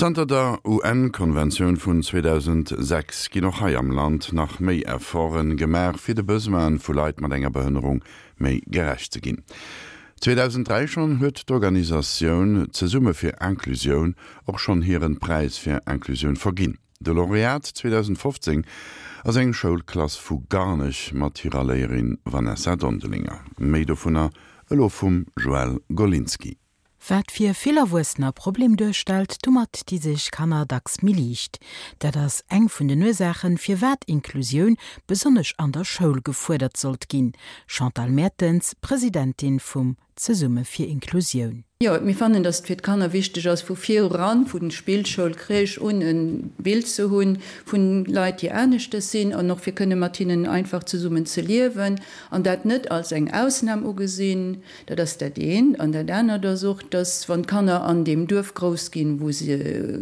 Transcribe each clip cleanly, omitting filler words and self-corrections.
Zanter der UN-Konventioun vun 2006 ginn och hei am Land nach méi Efforte gemaach, fir de Besoine vu Leit mat enger Behënnerung méi gerecht ze ginn. 2003 schonn huet d'Organisatioun Zesumme fir Inclusioun och schonn hiren Präis fir Inclusioun verginn. De Laureat 2015 ass eng Schoulklass vu Garnech mat hirer Léierin Vanessa Dondelinger. Méi dovunner elo vum Joëlle Golinski. Wat fir vill Erwuessener e Problem duerstellt, domat di sech Kanner dacks méi liicht. Dat ass eng vun den Ursaachen, firwat Inklusioun besonnesch an der Schoul gefuerdert sollt ginn. Chantal Mertens, Presidentin vum Zesumme fir Inklusioun. Jo, mir fannen, dass et fir d'Kanner wichteg ass, vu viran, vu Spillschoul, Crèche un, e Bild ze hunn vun Leit, déi aneschtes sinn, an och fir kënne mat hinnen einfach zesummen ze liewen an dat net als eng Ausnam ugesinn. Dat ass dat eent. An dat anert ass och, dass, wann d'Kanner an deem Duerf grouss ginn, wou se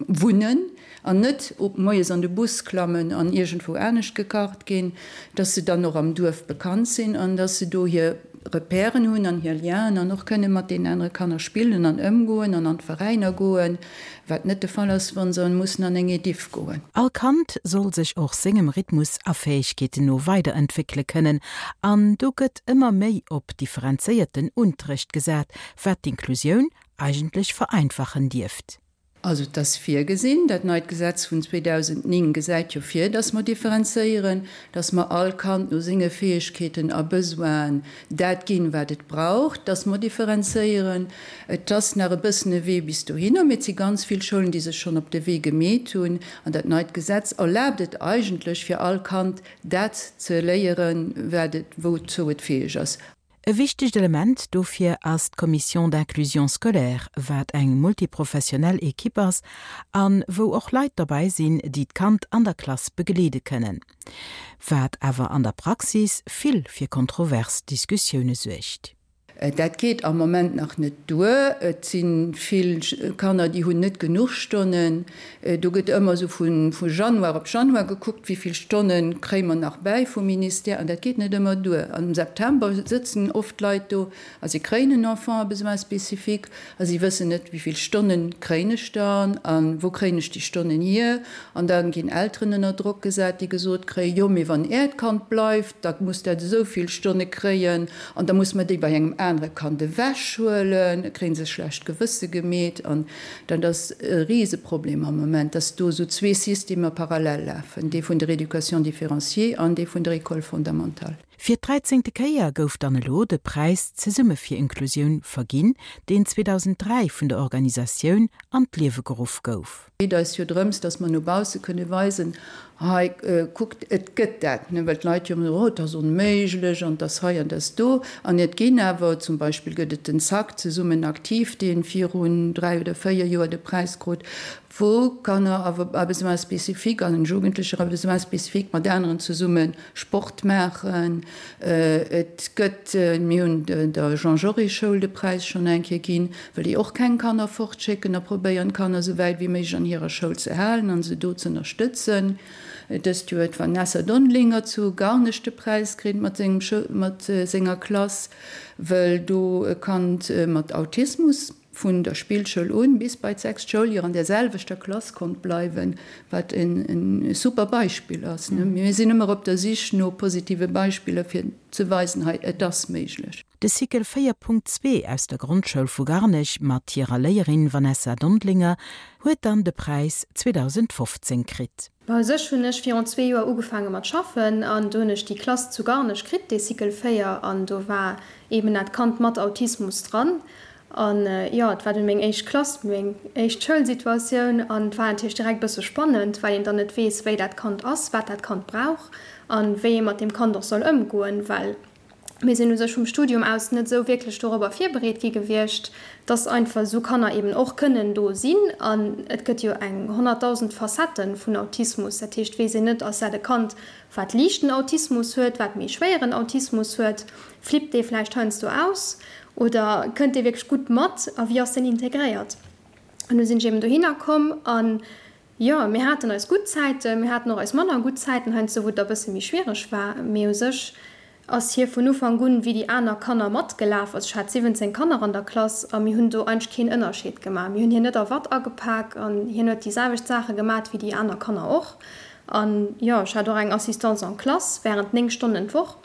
wunnen, an net moies an de Bus klammen an iergendwou anescht gekarrt ginn, dass se dann och am Duerf bekannt sinn an dass se do hir Repèren hunn an hir Lienen an och kënne mat deenen anere Kanner spillen an ëmgoen an an d'Veräiner goen. Wat net de Fall ass, wa se mussen an eng Ediff goen. All Kand soll sech och sengem Rhythmus a Fäegkeeten no weiderentwéckele kënnen an do gëtt ëmmer méi op differenzéierten Unterrecht gesat, wat d'Inklusioun eigentlech vereinfachen dierft. Also et ass virgesinn, dat neit Gesetz vun 2009 gesäit jo vir, dass mer differenzéieren, dass mer all Kand no senge Fäegkeeten a Besoinen dat ginn, wat et brauch, dass mer differenzéieren. Et ass nach e bëssen e Wee bis dohinner, mee et si ganz vill Schoulen, déi sech schonn op de Wee gemeet hunn. An dat neit Gesetz erlaabt et eigentlech, fir all Kand dat ze léieren, wat et, wouzou et fäeg ass. E wichtegt Element dofir ass d'Commission d'inclusion scolaire, wat eng multiprofessionell Equipe ass a wou och Leit dobäi sinn, déi d'Kand an der Klass begleede kënnen. Wat awer an der Praxis vill fir kontrovers Diskussioune suergt. Dat geet am Moment nach net duer. Et si vill Kanner, déi hunn net genuch Stonnen. Do gëtt ëmmer esou vu Januar op Januar gekuckt, wéi vill Stonne kréie mer nach bäi vum Ministère. An dat geet net ëmmer duer. Am September sëtzen oft Leit do a si kréien en Enfant à besoins spécifiques a si wëssen net, wéi vill Stonne kréien ech dann a wou kréien ech déi Stonnen hier. An da ginn Elteren ënner Drock gesat, déi gesot kréien, jo, mee wann Äert Kand bleift, da muss dat esou vill Stonne kréien. An da muss mer déi bei engem anere Kand ewechhuelen, da kréie se schlecht Gewësse gemeet. An dat ass e Riseproblem am Moment, dass do esou zwee Systemer parallel lafen, dee vun der Éducation différenciée an dee vun der École fondamentale. Fir d'dräizéngte Kéier gouf dann elo de Präis Zesumme fir Inklusioun verginn, deen 2003 vun der Organisatioun an d'Liewe geruff gouf. Et geet eis jo drëms, dass mer no bausse kënne weisen, hei kuckt, et gëtt dat, well d'Leit jo ëmmer soen, oh, et ass onméiglech an et ass hei an et ass do. An et ginn awer, zum Beispill gëtt et den ZAK, Zesummen aktiv, dee virun 3 oder 4 Joer de Präis krut, wou Kanner à besoins spécifiques an Jugendlecher à besoins spécifiques mat aneren zesumme Sport maachen. Et gëtt, mir hunn der Jean Jaurès Schoul de Präis schonn eng Kéier ginn, well déi och keng Kanner fortschécken a probéieren d'Kanner esou wäit wéi méiglech an hirer Schoul ze halen an se do z'ënnerstëtzen. Dëst Joer huet d'Vanessa Dondelinger zu Garnech de Präis kritt mat sengem mat senger Klass, wëll do e Kand mat Autismus vun der Spillschoul un bis bei d'sechst Schouljoer an der selwechter Klass konnt bleiwen, wat e super Beispill ass. Mir sinn ëmmer op der Sich no positive Beispiller fir ze weisen, hei et ass méiglech. De Cycle 4.2 aus der Grondschoul vu Garnech mat hirer Léierin Vanessa Dondlinger huet dann de Präis 2015 kritt. Bon, u sech hunn ech virun zwee Joer ugefaange mat schaffen an do hunn ech déi Klass zu Garnech kritt, dee Cycle 4, an do war eben dat Kand mat Autismus dran. An jo, et war dunn meng éischt Klass, meng éischt Schoulsituatioun an et war natierlech direkt e bësse spannend, well een dann net weess, wéi dat Kand ass, wat dat Kand brauch an wéi ee mat deem Kand och soll ëmgoen, well mir sinn u sech vum Studium aus net esou wierklech dorobber virbereet gi gewiescht, dass einfach esou Kanner eben och kënnen do sinn. An et gëtt jo eng 100.000 Facettë vun Autismus. Dat heescht, weess een net, ass dat e Kand, wat liichten Autismus huet, wat méi schwéieren Autismus huet, flippt dee vläicht heiansdo aus oder kënnt dee wierklech gutt mat a wéi ass deen integréiert? An du sinn ech eben dohinner komm an Jo, mir haten eis gutt Zäiten, mir haten och eis manner gutt Zäiten heiansdo, wou et da bësse méi schwiereg war. Mee u sech. Ass hie vun Ufank un wéi déi aner Kanner matgelaf. Also ech hat 17 Kanner an der Klass a mir hunn do eigentlech keen Ënnerscheed gemaach. Mir hunn hien net a Watt agepak an hien huet déi selwecht Saache gemat wéi déi aner Kanner och. An jo, ech hat och eng Assistance en classe während 9 Stonnen d'Woch,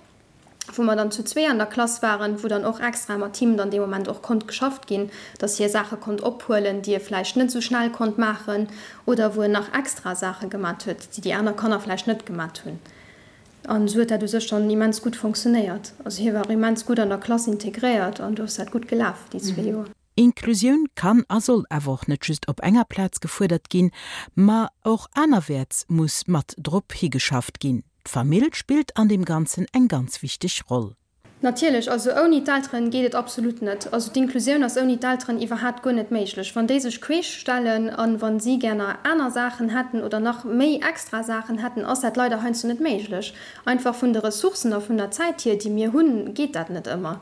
wou mer dann zu zwee an der Klass waren, wou dann och extra mat him dann dee Moment och konnt geschafft ginn, dass hie Saache konnt ophuelen, déi e vläicht net esou schnell konnt maachen oder wou en nach extra Saache gemat huet, déi déi aner Kanner vläicht net gemat hunn. An esou huet dat u sech dann immens gutt fonctionnéiert. Also hie war och immens gutt an der Klass integréiert an do ass dat gutt gelaf déi zwee Joer. Inklusioun kann a soll awer och net just op enger Plaz gefuerdert ginn, ma och anerwäerts muss mat drop higeschafft ginn. D'Famill spillt an deem Ganzen eng ganz wichteg Roll. Natierlech, also ouni d'Elteren geet et absolut net. Also d'Inklusioun ass ouni d'Elteren iwwerhaat guer net méiglech. Wann déi sech queesch stellen an wann si gär aner Saachen hätten oder nach méi extra Saachen hätten, ass dat leider heiansdo net méiglech. Einfach vun de Ressourcen a vun der Zäit hier, déi mir hunn, geet dat net ëmmer.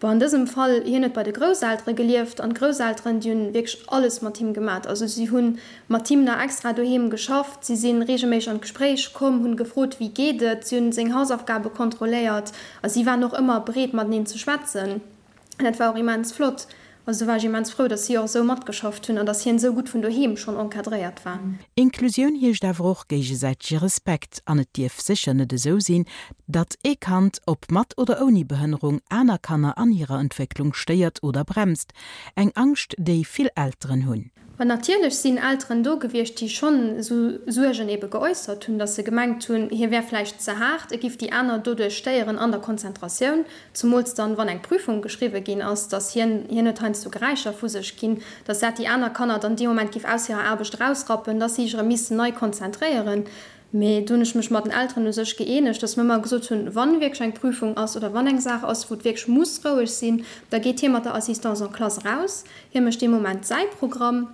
Bon, an dësem Fall, hien huet bei de Grousseltere gelieft an d'Grousselteren, déi hunn wierklech alles mat him gemat. Also si hunn mat him nach extra doheem geschafft, si si reegelméisseg an d'Gespréich komm, hunn gefrot, wéi geet et, si hunn seng Hausaufgabe kontrolléiert a si waren och ëmmer bereet mateneen ze schwätzen. An dat war och immens flott. Also do war ech immens frou, datt si och esou matgeschafft hunn an datt hien esou gutt vun doheem schonn encadréiert war. Inklusioun heescht awer och géigesäitege Respekt an et dierf sécher net esou sinn, datt ee Kand, ob mat oder ouni Behënnerung, aner Kanner an hirer Entwécklung stéiert oder bremst. Eng Angscht, déi vill Elteren hunn. An natierlech sinn Elteren do gewiescht, déi schonn esou Suergen ebe geäussert hunn, datt se gemengt hunn, hie wär vläicht ze haart, e giff déi aner doduerch stéieren an der Konzentratioun, zumools dann, wann eng Prüfung geschriwwe ginn ass, datt hien, hien huet heiansdo Geräischer vu sech ginn, datt dat déi aner Kanner dann dee Moment giff aus hirer Aarbecht erausrappen, datt si sech erëm missten nei konzentréieren. Mee do hunn ech mech mat den Elteren u sech gëeenegt, datt mir ëmmer gesot hunn, wann wierklech eng Prüfung ass oder wann eng Saach ass, wou et wierklech muss roueg sinn, da geet hie mat der Assistance en classe eraus, hie mécht dee Moment säi Programm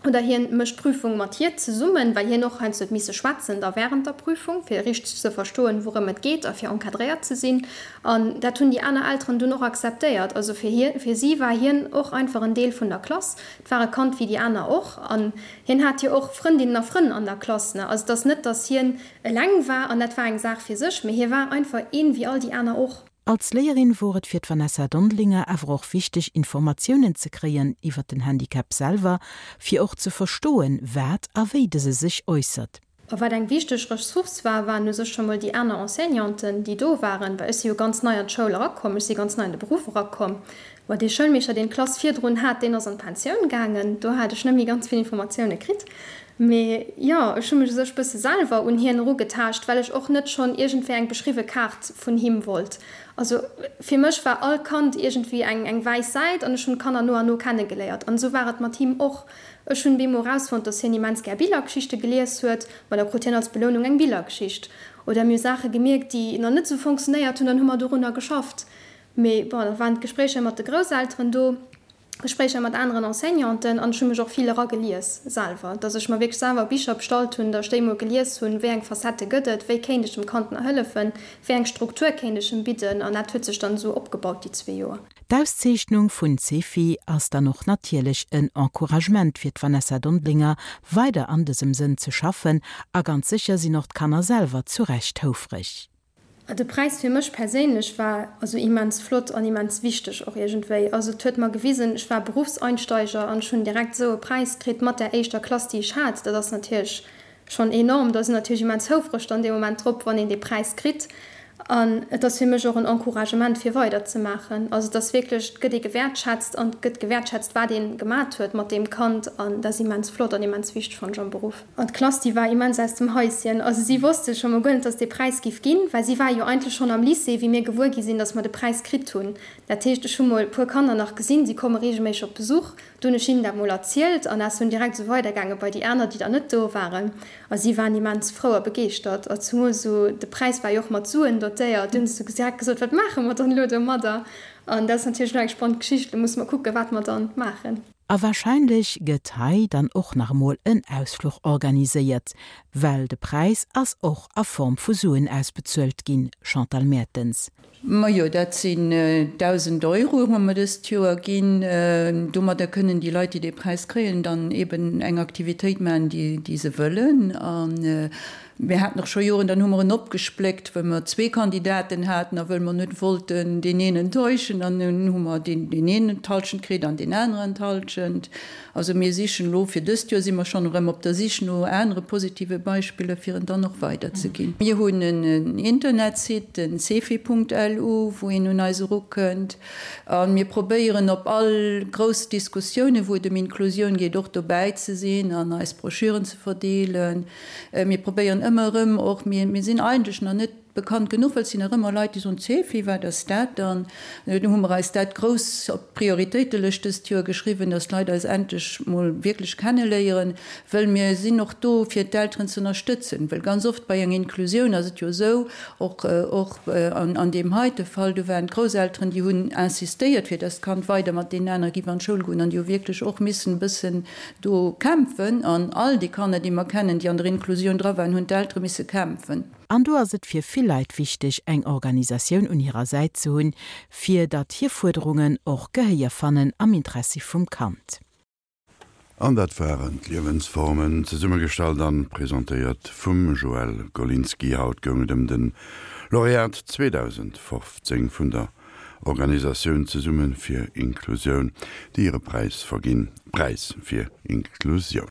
oder hien mécht d'Prüfung mat hir zesummen, well hien och heiansdo huet misse schwätzen da während der Prüfung, fir richteg ze verstoen, wourëm et geet a fir encadréiert ze sinn. An dat hunn déi aner Elteren dunn och akzeptéiert. Also fir hie, fir si war hien och einfach en Deel vun der Klass. Et war e Kand wéi déi aner och. An Hien hat jo och Frëndinnen a Frënn an der Klass, ne? Also et ass net, datt hien eleng war an dat war eng Saach fir sech, mee hie war einfach een wéi all déi aner och. Als Léierin wor et fir d'Vanessa Dondelinger awer och wichteg Informatiounen ze kréien iwwer den Handicap selwer, fir och ze verstoen, wat a wéi dëse sech äussert. A wat eng wichteg Ressource war, waren u sech scho mol déi aner Enseignanten, déi do waren, well ech si jo ganz nei an d'Schoul erakomm, ech si ganz nei an de Beruff erakomm. Bon, dee Schoulmeeschter, deen d'Klass virdrun hat, deen ass an d'Pensioun gaangen, do hat ech net méi ganz vill Informatioune kritt. Mee jo, ech hu mech u sech bësse selwer un hien erugetaascht, well ech och net schonn iergendwéi eng beschriwwe Kaart vun him wollt. Also fir mech war all Kand iergendwéi eng eng wäiss Säit an ech hunn d'Kanner no an no kennegeléiert. An esou war et mat him och. Ech hunn bemol erausfonnt, dass hien immens gär Billergeschichte gelies huet. Ma da krut hien als Belounung eng Billergeschicht. Oder mir hu Saache gemierkt, déi nach net esou fonctionnéiert hunn, dann hu mer dorunner geschafft. Mee bon, da waren d'Gespréicher mat de Grousselteren do, Gespréicher mat aneren Enseignanten an ech hu mech och vill eragelies selwer, dass ech mer wierklech selwer Bicher bestallt hunn, dass ech déi emol gelies hunn, wéi eng Facettë gëtt et, wéi kéint ech dem Kand nach hëllefen, wéi eng Struktur kéint ech em bidden an dat huet sech dann esou opgebaut déi zwee Joer. D'Auszeechnung vun Cefi ass dann och natierlech en Encouragement fir d'Vanessa Dondelinger, weider an dësem Sënn ze schaffen a ganz sécher sinn och d'Kanner selwer zu Recht houfreg. De Präis fir mech perséinlech war also immens flott an immens wichteg och iergendwéi. Also et huet mer gewisen, ech war Berufseinsteiger an ech hunn direkt esou e Präis kritt mat där éischter Klass déi ech hat. Dat ass natierlech Schonn enorm. Da sinn natierlech immens houfreg dann dee Moment drop, wann een dee Präis kritt. An et ass fir mech och en Encouragement fir weider ze maachen. Also et ass wierklech, et gëtt ee gewäertschätzt an et gëtt gewäertschätzt wat ee gemat huet mat deem Kand an dat ass immens flott an immens wichteg fannen ech am Beruff. An d'Klass déi war immens aus dem Haischen. Also si wosste scho mol guer net, dass et dee Präis giff ginn, well si war jo eigentlech schonn am Lycée wéi mir gewuer gi sinn, dass mer de Präis kritt hunn. Dat heescht ech hu mol e puer Kanner nach gesinn, si komme reegelméisseg op Besuch. Do hunn ech hinnen dat mol erzielt an ass dunn direkt esou weidergaange bei déi aner, déi dann net do waren. A si waren immens frou a begeeschtert. A zumools esou, de Präis war jo och mat Suen dotéiert, du hunn se esou direkt gesot, Wat maache mer dann elo domadder? An dat ass natierlech elo eng spannend Geschicht. Elo musse mer kucken, wat mer dann maachen. A warscheinlech gëtt hei dann och nach emol en Ausfluch organiséiert, well de Präis ass och a Form vu Suen ausbezuelt ginn, Chantal Mertens. Majo, dat sinn 1.000 Euro hu mer dëst Joer ginn. Domadder kënnen déi Leit, déi dee Präis kréien, dann eben eng Aktivitéit maachen, déi se wëllen. A mir haten och scho Joren, dann hu mer en opgespléckt, well mer zwee Kandidaten haten a wëll mer net wollten deen een enttäuschen. Dann hu mer deen een d'Hallschent kritt an deen aneren d'Hallschent. Also mir sichen elo, fir dëst Joer si mer schonn erëm op der Sich no anere positive Beispiller, fir en dann och weiderzeginn. Mir hunn en Internetsite, den cefi.lu, wou een un eis erukënnt. A mir probéieren op all grouss Diskussiounen, wou et ëm Inklusioun geet, och dobäi ze sinn an eis Broschüren ze verdeelen. Mir probéieren ëmmer erëm och, mir sinn eigentlech nach net, Bekannt genuch, well et sinn nach ëmmer Leit, déi soen, Cefi, wat ass dat dann? Do hu mer eis dat grouss op d'Prioritéitelëscht dëst Joer geschriwwen, dass d'Leit eis endlech mol wierklech kenneléieren, wëll mir sinn och do, fir d'Elteren ze ënnerstëtzen. Well ganz oft bei enger Inklusioun ass et jo esou, och och an deem heite Fall, do waren d'Grousselteren, déi hunn insistéiert, fir dass d'Kand weider mat deenen anere giff an d'Schoul goen an déi hu wierklech och missen e bëssen do kämpfen. An all déi Kanner, déi mer kennen, déi an der Inklusioun dra waren, hunn d'Eltere misse kämpfen. An do ass et fir vill Leit wichteg, eng Organisatioun un hirer Säit ze hunn, fir datt hir Fuerderungen och Gehéier fannen am Interessi vum Kand. An dat waren d'Liewensformen, zesummegestallt an presentéiert vum Joël Golinski. Haut goung et ëm den Laureat 2015 vun der Organisatioun Zesumme fir Inklusioun, déi hire Präis verginn, Präis fir Inklusioun.